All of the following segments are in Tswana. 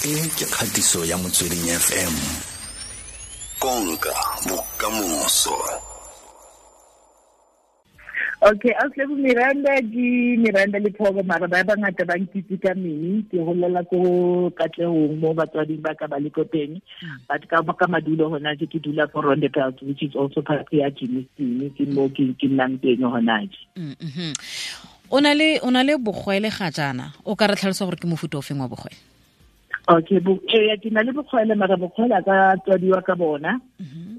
E ke kgatiso ya Motsweding FM. Konka bokamoso. Okay, Auslebo Miranda ke Miranda Lephoko, mara ba bangata ba nkitse ka Mini. Ke holela ko Katlehong mo batswading ba ka ba le ko teng. But ka madulo hona je ke dula ko Rondebult, which is also part ya Germiston, ke mo ke nnang teng hona je. O na le bogwele ga jaana, o ka re tlhalosa gore ke mofuta o feng wa bogwele? Okay, bo ke na le bogwele, mara bogwele a ka tswadiwa ka bona.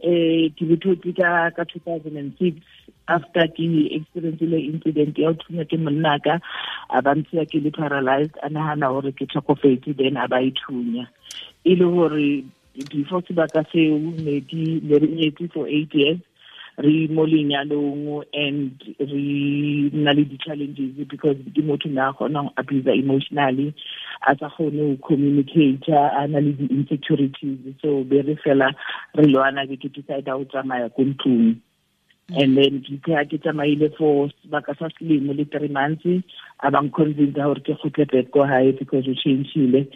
Ke bothotse ka 2006 after ke experience le incident ya ho thunya ke monna ka, a ba ntshiya ke le paralyzed, a nahana hore ke tlhokofetse, then a ba ithunya. E le hore before sebaka seo ne ke ne re nyetse for 8 years, re mo lenyalong, and re na le di-challenges because ke motho ne a kgona go abuse emotionally, a sa kgone go communicate, a na le di-insecurities, so be re fela re lwana, be ke decide go tsamaya ko ntlong. And then ke ha ke tsamaile for sebaka sa selemo le 3 months, a bang convince gore ke kgutle back ko hae because o changile.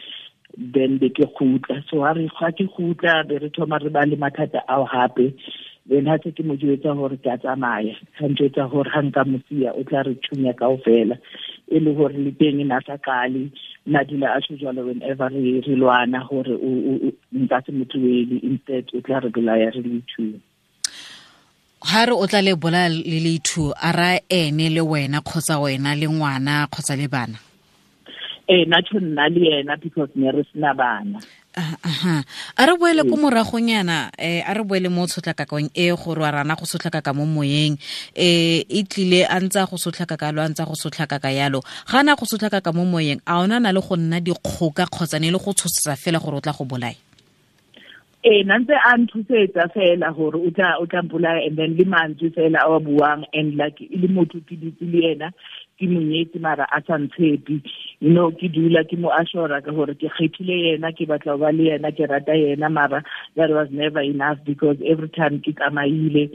Then be ke kgutla. So ha re ga ke kgutla, be re thoma re ba le mathata ao hape. Then ha se ke mo jwetsa hore ke a tsamaya, ha njwetsa hore ha nka mo siya o tla re thunya kaofela. E le hore le teng na sa qale nna dula a tjho jwalo whenever re lwana hore nka se mo tlohele, instead o tla re bolaya re le two. Ha re o tla le bolaya le le two, a ra ene le wena kgotsa wena le ngwana kgotsa le bana? Eh, na tjho nna le yena because ne re sena bana. Aha, a re boele ko moragonyana, a re boele mo tshotlakakong e gore wa rana go sotlakaka mo moyeng. E tlile a ntse a go sotlakaka lo, a ntse a go sotlakaka yalo, ga na go sotlakaka mo moyeng, a ona na le go nna dikgoka kgotsa ne le go tshosetsa fela gore o tla go bolaya? Eh, na ntse a nthusetsa fela gore o tla mpolaya, and then le mantswe fela a wa buang, and like e le motho ke dutse le yena, ke monyetse, mara a sa ntshepe. Ke dula ke mo assure ka gore ke kgethile yena, ke batla ho ba le yena, ke rata yena, mara that was never enough because every time ke tsamaile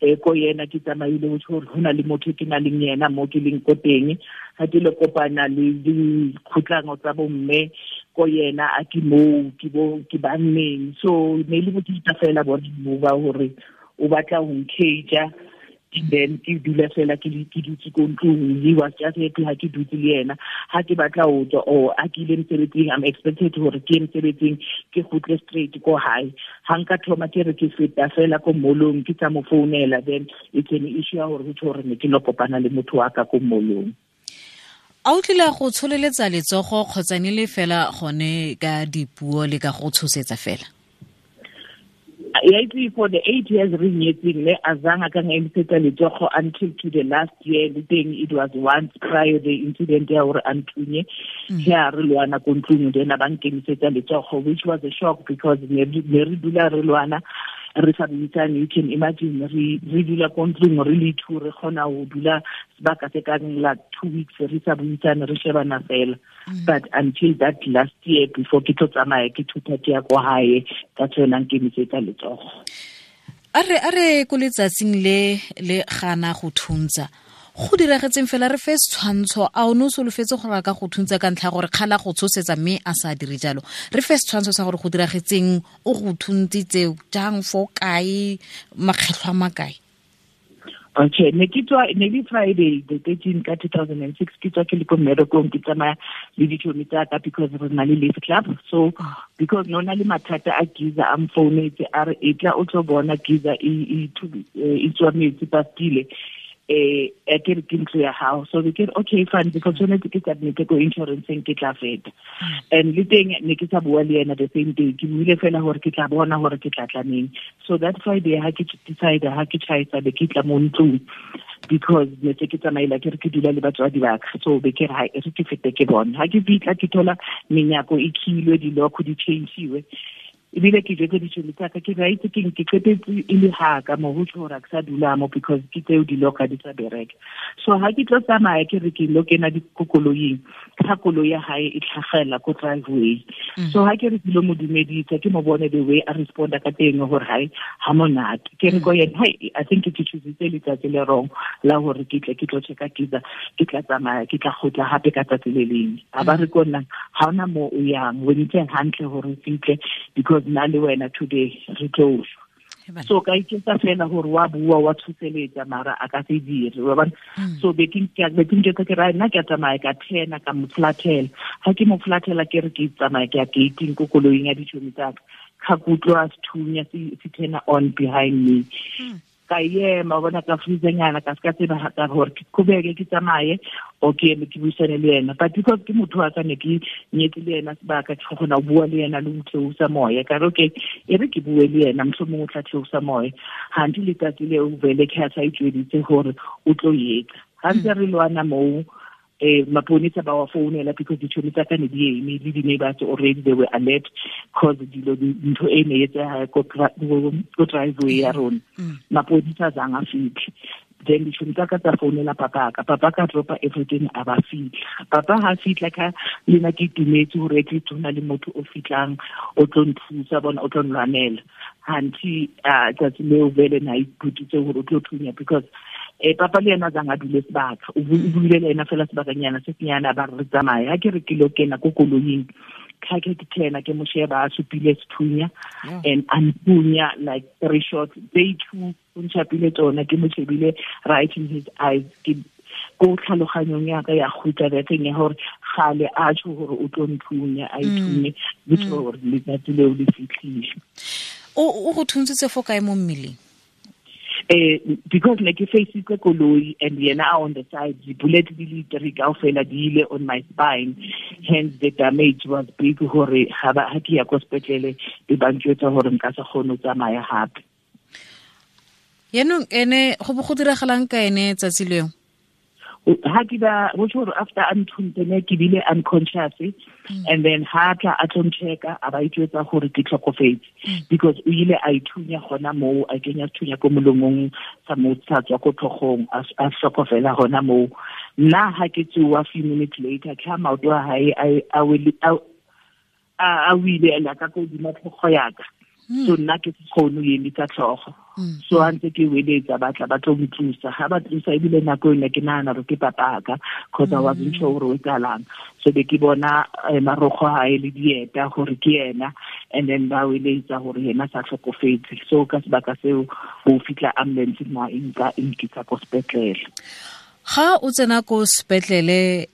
ko yena, ke tsamaile ho tjho hore ho na le motho ke na leng yena mo ke leng ko teng. Ha ke le kopana le dikgotlango tsa bomme ko yena, a ke moo ke bo ke banneng. So ne le bothata fela bona mo ba hore o batla ho ncage, then ke dula fela ke dutse ko ntlong. He was just happy ha ke dutse le yena. Ha ke batla ho tswa or ha ke ile mosebetsing, I'm expected hore ke ye mosebetsing, ke kgutle straight ko hae. Ha nka thoma ke re ke feta fela ko mall-ong, ke tsa mo founela, then it's an issue ya hore ho tjho hore ne ke lo kopana le motho wa ka ko mall-ong. A o tlile go tsholeletsa letsogo kgotsa ne le fela gone ka dipuo le ka go tshosetsa fela? Ya itse, for the 8 years re nyetseng, ne azange a ka ngemisetsa letsogo until to the last year. Le teng it was once prior the incident ya hore a nthunye, ya re lwana ko ntlong, then a ba nkemisetsa letsogo, which was a shock because ne re dula re lwana, re sa buisane. You can imagine, re dula ko ntlong re le two, re kgona ho dula sebaka se kang la 2 weeks re sa buisane, re shebana fela. But until that last year before ke tlo tsamaya, ke thutha ke ya ko hae, ka tsona nkemisetsa letsogo. A re ko letsatsing le le gana go thuntsa, go diragetseng fela? Re fe setshwantsho. A o ne o solofetse gore a ka go thuntsa ka ntlha ya gore kgala go tshosetsa mme a sa dire jalo? Re fe setshwantsho sa gore go diragetseng, o go thuntsitse jang, fo kae, makgetlho a makae? Okay, ne ke tswa, ne le Friday the 13 ka 2006, ke tswa ke le ko mmerekong, ke tsamaya le ditšhomi tsa ka because re na le lift club. So because no na le mathata a geyser, a mfounetse a re e tla o tlo bona geyser e tswa metsi pastile, a ke re ke ntlo ya gago. So be ke re okay, fine, because tshwanetse ke submit ko insurance, ke tla feta. And le teng ne ke sa bua le yena the same day, ke buile fela gore ke tla bona gore ke tla tlaneng. So that Friday ha ke decide, ha ke tjhaisa, be ke tla mo ntlong because ne se ke tsamaila, ke re ke dula le batswadi ba ka, so be ke re ha e re ke fete ke bone. Ha ke fitla, ke thola menyako e khilwe, dilokho di change-iwe. Ebile ke jwetse ditšhomi tsaka ke ba itse keng, ke qetetse e le haka mo ho tjho hore ha ke sa dula mo because ke tseo diloka di sa bereka. So ha ke tlo tsamaya ke re ke lo kena dikoloing, ka koloi ya hae e tlhagela ko driveway. So ha ke re ke lo mo dumedisa, ke mo bone the way a responda ka teng hore hae ha monate. Ke re ko yena, hai, I think ke choositse letsatsi le wrong la hore ke tle ke tlo checka geyser, ke tla tsamaya, ke tla kgutla hape ka tsatsi le leng. A ba re ko nna, ha hona mo o yang, o ntse hantle hore o fihle because nna le wena today re tlo shwa. So ka iketsa fela hore wa bua, wa tshoseletsa, mara a ka se dire, wa bona. So be ke njwetsa ke re, nna ke a tsamaya, ka thena, ka mo flathela. Ha ke mo flathela ke re ke tsamaya ke ya gating ko koloing ya ditšhomi tsa ka, ka kutlwa sethunya se turn on behind me. Ka ema, wa bona, ka freezenyana, ka ska tseba ha ka hore ke qhubeke ke tsamaye o ke eme ke buisane le yena. But because ke motho wa ka, ne ke nyetse le yena sebaka, ke kgona ho bua le yena le ho theosa moya. Ka re, okay, e re ke bue le yena, mohlomong o tla theosa moya. Hanthe letsatsi leo vele ke ha sa itjweditse hore o tlo etsa. Ha ntse re lwana moo, maponesa ba wa founela because ditšhomi tsa ka ne di eme le di-neighbors already, they were alert cause dilo ntho e ne etseha ko driveway ya rona. Maponesa a zang a fitlhe. Then ditšhomi tsa ka tsa founela papa ka, papa ka dropa everything, a ba fitlha. Papa ha fitlha ka le nna ke itumetse hore at least ho na le motho o fitlang o tlo nthusa, bona o tlo nlwanela. Hanthe, tsatsi leo vele na iphuthitse hore o tlo thunya because papa le yena a zang a dule sebaka, o buile le yena fela sebakanyana se senyane, a ba re tsamaye. Ha ke re ke lo kena ko koloing, ka ke thena ke mo sheba a supile sethunya and a nthunya like 3 shots, they two o ntšhapile tsona, ke mo shebile right in his eyes. Ke ko tlhaloganyong ya ka ya kgutla that thing ya hore gale a tjho hore o tlo nthunya, a ithunye, le tjho hore letsatsi leo le fihlile. O go thuntsitse fo kae mo mmeleng? Because ne ke faceitse koloi and yena a on the side, the bullet di le three kaofela di ile on my spine, hence the damage was big hore ha ba, ha ke ya ko sepetlele be ba ntjwetsa hore nka se kgone ho tsamaya hape. Yaanong ene go bo go diragalang ka ene tsatsi leo? Ha ke ba, ho tjho hore after a nthuntse ne ke bile unconscious, and then ha tla a tlo nchecka, a ba itjwetsa hore ke tlhokofetse. Because o ile a ithunya hona moo, a kenya sethunya ko molomong sa mo sa tswa ko tlhogong, a hlokofela hona moo. Nna ha ke tsoha few minutes later, ke ha maoto a hae a wile a ka ko hodima tlhogo ya ka. So nna ke se kgone ho emisa tlhogo. So ha ntse ke weletsa, ba tla ba tlo ntlosa. Ha ba tlosa, ebile nako ena ke nahana hore ke papa ka, cause I wasn't sure hore o etsahalang. So be ke bona marokgo a hae le dieta hore ke yena, and then ba weletsa hore yena sa hlokofetse. So ka sebaka seo ho fihla ambulance na e nka e nkisa ko sepetlele. Ga o tsena ko sepetlele,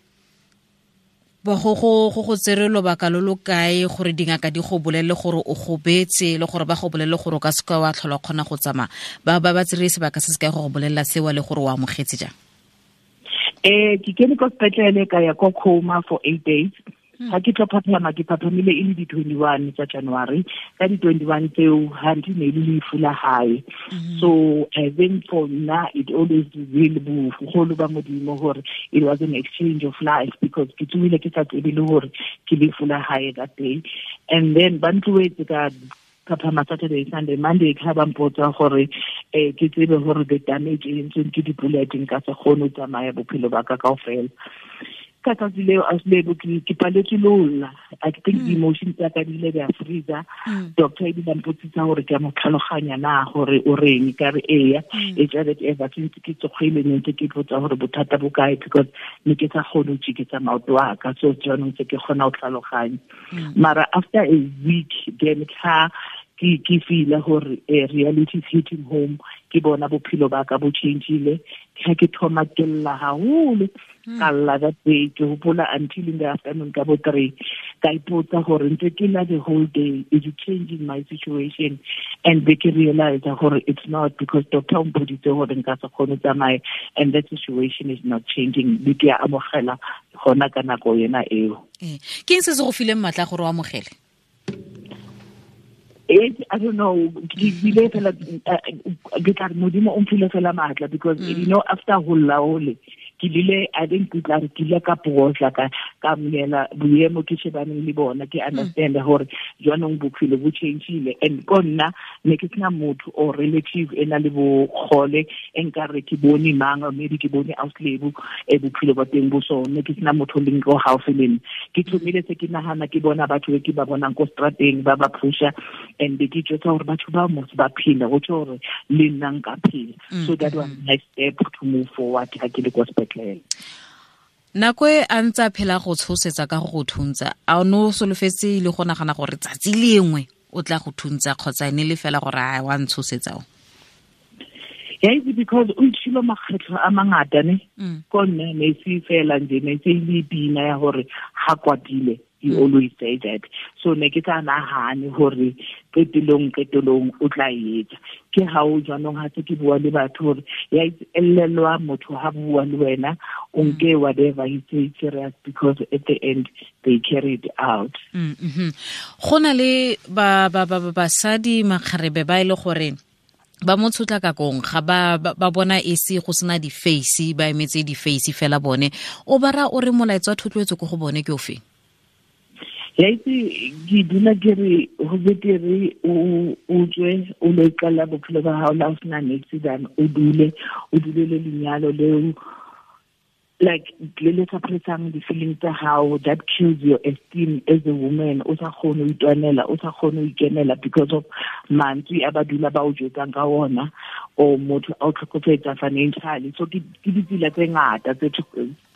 ba go go go go tsere lobaka lo lo kae gore dingaka di go bolelle gore o gobetse, le gore ba go bolelle gore o ka seka wa tlhola o kgona go tsamaya? Ba ba ba tsere sebaka se se kae go go bolella seo le gore o amogetse jang? Ke kene ko sepetlele ka ya ko coma for 8 days. Ha ke tlo phaphama, ke phaphamile e le di-21 tsa January. Ka di-21 tseo, ha nthe ne le lefu la hae. So I think for nna it always will be boholo ba Modimo hore it was an exchange of life, because ke tsohile ke sa tsebe le hore ke lefu la hae that day. And then ba ntlohetse ka phaphama Saturday, Sunday, Monday, ka ba mpotsa gore ke tsebe hore the damage e entsweng ke di-bullet nka se kgone ho tsamaya bophelo ba ka kaofela. Ka tsatsi leo, a Lebo, ke paletswe le ho lla. I think the emotions tsa ka di ile di a freezer. Doctor ebile a mpotsisa hore ke a mo tlhaloganya na hore o reng, ka re eya. E tla that ever since ke tsogile ne ntse ke ipotsa hore bothata bo kae, because ne ke sa kgone ho tjeketsa maoto a ka. So jaanong se ke kgona ho tlhaloganya. Mara after a week then ka ke feel hore reality is hitting home, ke bona bophelo ba ka bo changeile. Ha ke thoma ke lla haholo, ka lla that day, ke hopola until in the afternoon ka bo 3, ka ipotsa hore ntse ke lla the whole day, is it changing my situation? And be ke realize hore it's not, because doctor o mpoditse hore nka se kgone ho tsamaya, and that situation is not changing. Be ke a amogela hona ka nako yena eo. Ke eng se se go fileng matla gore o amogele? I don't know. Ke bile fela, ke tla re Modimo o mphile fela matla, because you know, after ho lla hole, ke lile, I think ke tla re ke ile ka phosa, Ka amohela boemo ke shebaneng le bona, ke understand hore jwanong bophelo bo changile. And ko nna ne ke sena motho or relative e na le bogole e nkare ke bone mang, or maybe ke bone auslebo e bophelo ba teng bo so, ne ke sena motho leng ko gaufi le nna. Ke thomile se ke nagana, ke bona batho be ke ba bonang ko strateng ba ba pusha, and ke jwetsa gore batho ba mos ba phela, go tjho gore le nna nka phela. So that was my step to move forward ha ke le ko sepetlele. Nako e a ntse a phela go tshosetsa ka go go thuntsa, a o ne o solofetse le go nagana gore tsatsi lengwe o tla go thuntsa, kgotsa ene le fela gore a wa ntshosetsa o? Ya itse, because o itshilo makgetlho a mangata ne. Ko nna ne se fela nje, ne se le pina ya gore ha kwatile, you always say that. So ne ke sa nahane gore qetelong o tla etsa. Ke ha o jwanong ha se ke bua le batho gore ya elelwa motho ha bua le wena, o nke whatever he say serious, because at the end they carry it out. Go na le ba ba ba basadi makgarebe ba ile gore ba mo tshotlakakong, ga ba bona e se go sena di-face, ba emetse di-face fela bone. O bara o re molaetsa wa thotloetso ko go bone ke o feng? Ya itse, ke dula ke re ho betere o tswe o lo iqalla bophelo ba hao la o sena niks than o dule o dulele lenyalo leo, like le le suppressang di-feelings tsa hao, that kills your esteem as a woman. O sa kgone ho itwanela, o sa kgone ho ikemela because of mantswe a ba dula ba o jwetsang ka ona, or motho a o tlhokofetsa financially. So ke ditsela tse ngata tse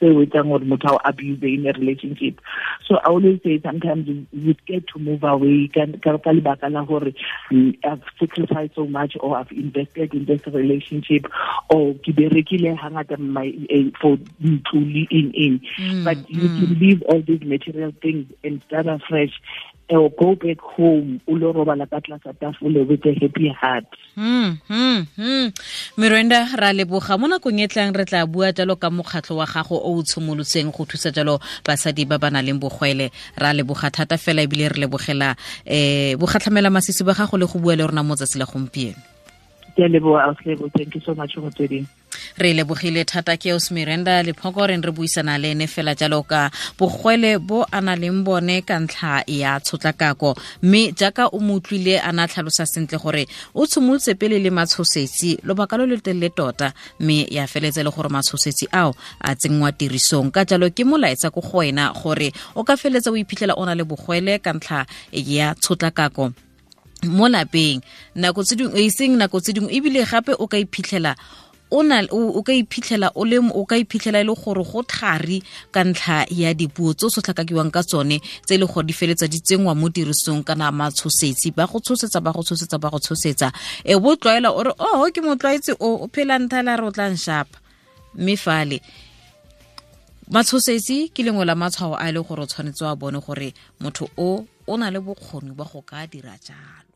o etsang gore motho a o abuse in a relationship. So I always say sometimes we get to move away ka lebaka la gore I've sacrificed so much, or I've invested in this relationship, or ke berekile hangata my for ntlo le eng. But you can leave all these material things and start afresh, or go back home o lo robala ka tlasa tafole with a happy heart. Miranda, ra leboga. Mo nakong e tlang re tla bua jalo ka mokgatlho wa gago o o tshimolotseng go thusa jalo basadi ba ba nang le bogwele. Ra leboga thata fela, ebile re lebogela bogatlhamela masisi ba gago le go bua le rona mo tsatsi la gompieno. Ke a leboga, Auslebo. Thank you so much go tsweding. Re lebogile thata. Ke os Miranda Lephoko re re buisana le ene fela jalo ka bogwele bo a na leng bone ka ntlha ya tshotlakako, mme jaaka o mo utlwile a na tlhalosa sentle gore o tshimolotse pele le matshosetsi lobaka lo lo telele tota, mme ya feletse le gore matshosetsi ao a tsenngwa tirisong. Ka jalo ke molaetsa ko go wena gore o ka feletsa o iphitlhela o na le bogwele ka ntlha ya tshotlakako mo lapeng nako tse dingwe, e seng nako tse dingwe, ebile gape o ka iphitlhela o na o ka iphitlhela o le o ka iphitlhela e le gore go thari ka ntlha ya dipuo tse o sotlhakakiwang ka tsone, tse e le gore di feletsa di tsenngwa mo tirisong, kana matshosetsi ba go tshosetsa, ba go tshosetsa, ba go tshosetsa, e bo tlwaela o re oh ke motlwaetse o phela nthala re o tla nshapa. Mme fale matshosetsi ke lengwe la matshwao a e le gore o tshwanetse wa bone gore motho o na le bokgoni ba go ka dira jalo.